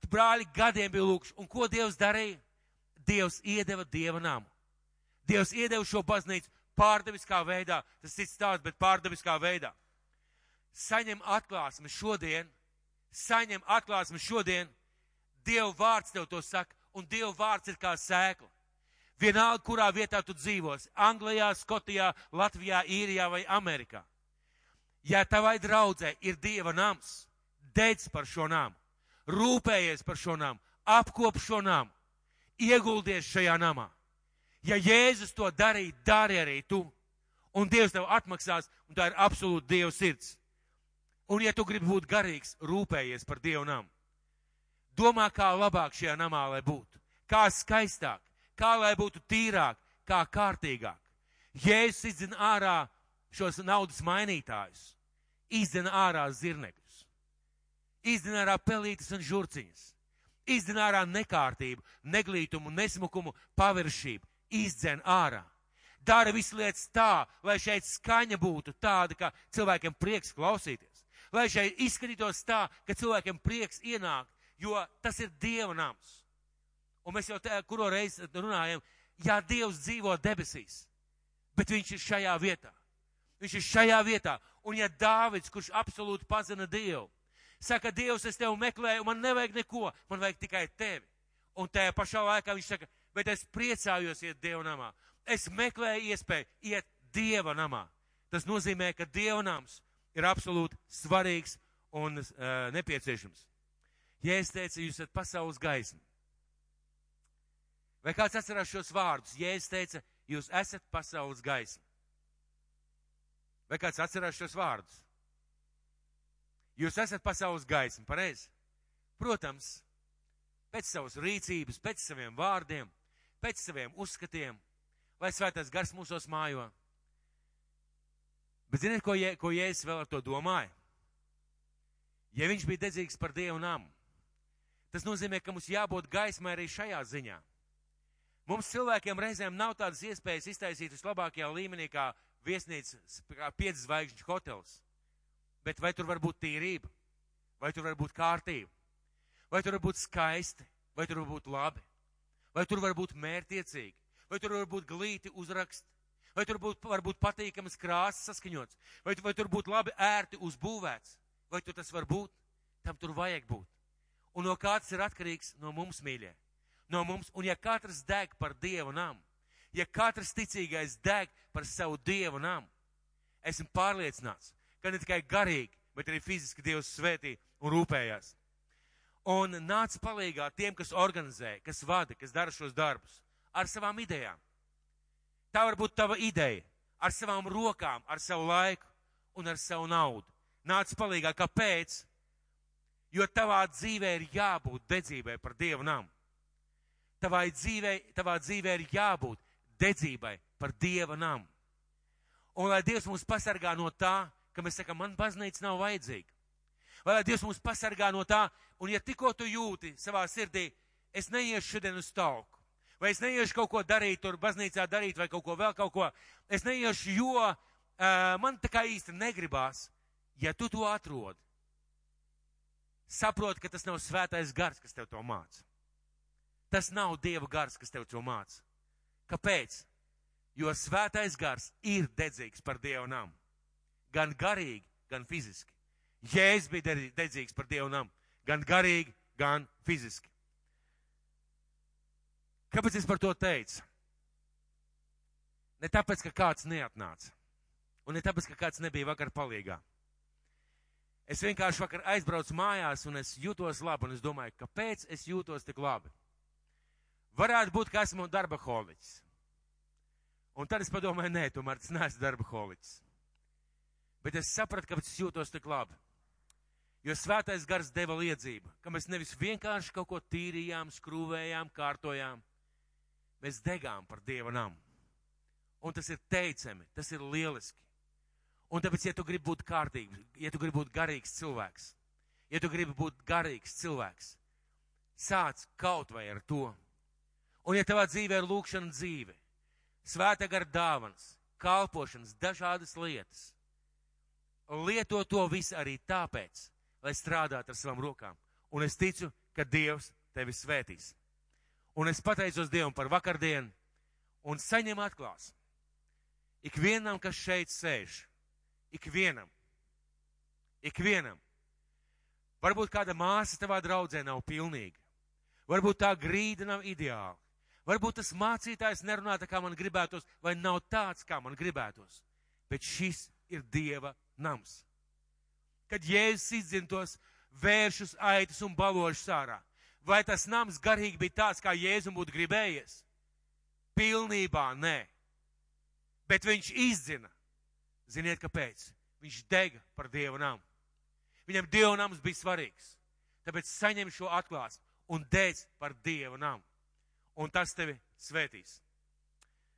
Brāļi gadiem bija lūguši. Un ko Dievs darīja? Dievs iedeva Dieva namu. Dievs iedeva šo baznīcu pārdabiskā veidā. Tas cits stāsts, bet pārdabiskā veidā. Saņem atklāsmi šodien. Saņem atklāsmi šodien. Dieva vārds tev to saka. Un Dieva vārds ir kā sēkla. Vienalga, kurā vietā tu dzīvosi. Anglijā, Skotijā, Latvijā, Īrijā vai Amerikā. Ja tavai draudzē ir Dieva nams, dedz par šo namu. Rūpējies par šo namu. Apkop šo namu. Ieguldies šajā namā. Ja Jēzus to darīja, dari arī tu. Un Dievs tev atmaksās, un tā ir absolūti Dieva sirds. Un ja tu gribi būt garīgs, rūpējies par Dieva namu. Domā, kā labāk šajā namā, lai būtu. Kā skaistāk, kā lai būtu tīrāk, kā kārtīgāk. Jēzus izdzina ārā šos naudas mainītājus. Izdzina ārā zirnekļus. Izdzina ārā pelītes un žurciņas. Izdzina ārā nekārtību, neglītumu, nesmukumu, paviršību. Izdzina ārā. Dara visu lietas tā, lai šeit skaņa būtu tāda, ka cilvēkiem prieks klausīties. Lai šeit izskatītos tā, ka cilvēkiem prieks ienākt, jo tas ir Dieva nams. Un mēs jau kuro reizi runājam, jā, Dievs dzīvo debesīs, bet viņš ir šajā vietā. Viņš ir šajā vietā. Un ja Dāvids, kurš absolūti pazina Dievu, saka, Dievs, es tevi meklēju, man nevajag neko, man vajag tikai tevi. Un tajā pašā laikā viņš saka, bet es priecājos iet Dieva namā. Es meklēju iespēju iet Dieva namā. Tas nozīmē, ka Dieva nams ir absolūti svarīgs un nepieciešams. Jēzus teica, jūs esat pasaules gaisma. Vai kāds atcerās šos vārdus? Jēzus teica, jūs esat pasaules gaisma. Vai kāds atcerās šos vārdus? Jūs esat pasaules gaisma, pareizi? Protams, pēc savas rīcības, pēc saviem vārdiem, pēc saviem uzskatiem, lai svētais gars mūsos mājo. Bet ziniet, ko Jēzus vēl ar to domāja? Ja viņš bija dedzīgs par Dievu namu, tas nozīmē, ka mums jābūt gaismai arī šajā ziņā. Mums cilvēkiem reizēm nav tādas iespējas iztaisīt vislabākajā līmenī kā viesnīca, kā 5 zvaigžņu hotels. Bet vai tur var būt tīrība? Vai tur var būt kārtība? Vai tur var būt skaisti? Vai tur var būt labi? Vai tur var būt mērtiecīgi? Vai tur var būt glīti uzraksti? Vai tur var būt patīkamas krāsas saskaņots? Vai tur būt labi ērti uzbūvēts? Vai tur tas var būt? Tam tur vajag būt. Un no kā tas ir atkarīgs? No mums, mīļie. No mums. Un ja katrs deg par Dieva namu, ja katrs ticīgais deg par savu Dieva namu, esmu pārliecināts, ka ne tikai garīgi, bet arī fiziski Dievs svētī un rūpējās. Un nāc palīgā tiem, kas organizē, kas vada, kas dara šos darbus, ar savām idejām. Tā var būt tava ideja, ar savām rokām, ar savu laiku un ar savu naudu. Nāc palīgā, kāpēc? Jo tavā dzīvē ir jābūt dedzībai par Dievu namu. Tavā dzīvē ir jābūt dedzībai par Dieva namu. Un lai Dievs mūs pasargā no tā, ka mēs sakam, man baznīca nav vajadzīga. Vai lai Dievs mūs pasargā no tā, un ja tikko tu jūti savā sirdī, es neiešu šodien uz talku, vai es neiešu kaut ko darīt, tur baznīcā darīt, vai kaut ko vēl kaut ko, es neiešu, jo man tā kā īsti negribās, ja tu to atrodi. Saproti, ka tas nav svētais gars, kas tev to māca. Tas nav Dieva gars, kas tev to māca. Kāpēc? Jo svētais gars ir dedzīgs par Dieva namu. Gan garīgi, gan fiziski. Jēzus bija dedzīgs par Dieva namu. Gan garīgi, gan fiziski. Kāpēc es par to teicu? Ne tāpēc, ka kāds neatnāca. Un ne tāpēc, ka kāds nebija vakar palīgā. Es vienkārši vakar aizbraucu mājās un es jūtos labi. Un es domāju, kāpēc es jūtos tik labi? Varētu būt, ka esmu darbaholiķis. Un tad es padomāju, nē, tomēr tas neesmu darbaholiķis. Bet es sapratu, kāpēc es jūtos tik labi. Jo svētais gars deva liedzību, ka mēs nevis vienkārši kaut ko tīrījām, skrūvējām, kārtojām. Mēs degām par Dieva namu. Un tas ir teicami, tas ir lieliski. Un tāpēc, ja tu gribi būt kārtīgs, ja tu gribi būt garīgs cilvēks, sāc kaut vai ar to. Un ja tavā dzīvē ir lūkšana dzīve, svētā gara dāvanas, kalpošanas, dažādas lietas, lieto to visu arī tāpēc, lai strādātu ar savām rokām. Un es ticu, ka Dievs tevi svētīs. Un es pateicos Dievam par vakardienu un saņem atklāsmi. Ikvienam, kas šeit sēž, ikvienam. Varbūt kāda māsa tavā draudzē nav pilnīga. Varbūt tā grīda nav ideāla. Varbūt tas mācītājs nerunā tā, kā man gribētos, vai nav tāds, kā man gribētos. Bet šis ir Dieva nams. Kad Jēzus izdzina tos vēršus, aitus un balošus ārā, vai tas nams garīgi bija tāds, kā Jēzum būtu gribējies? Pilnībā nē. Bet viņš izdzina. Ziniet, kāpēc? Viņš dega par Dieva namu. Viņam Dieva nams bija svarīgs. Tāpēc saņem šo atklāsmi un dēdz par Dieva namu. Un tas tevi svētīs.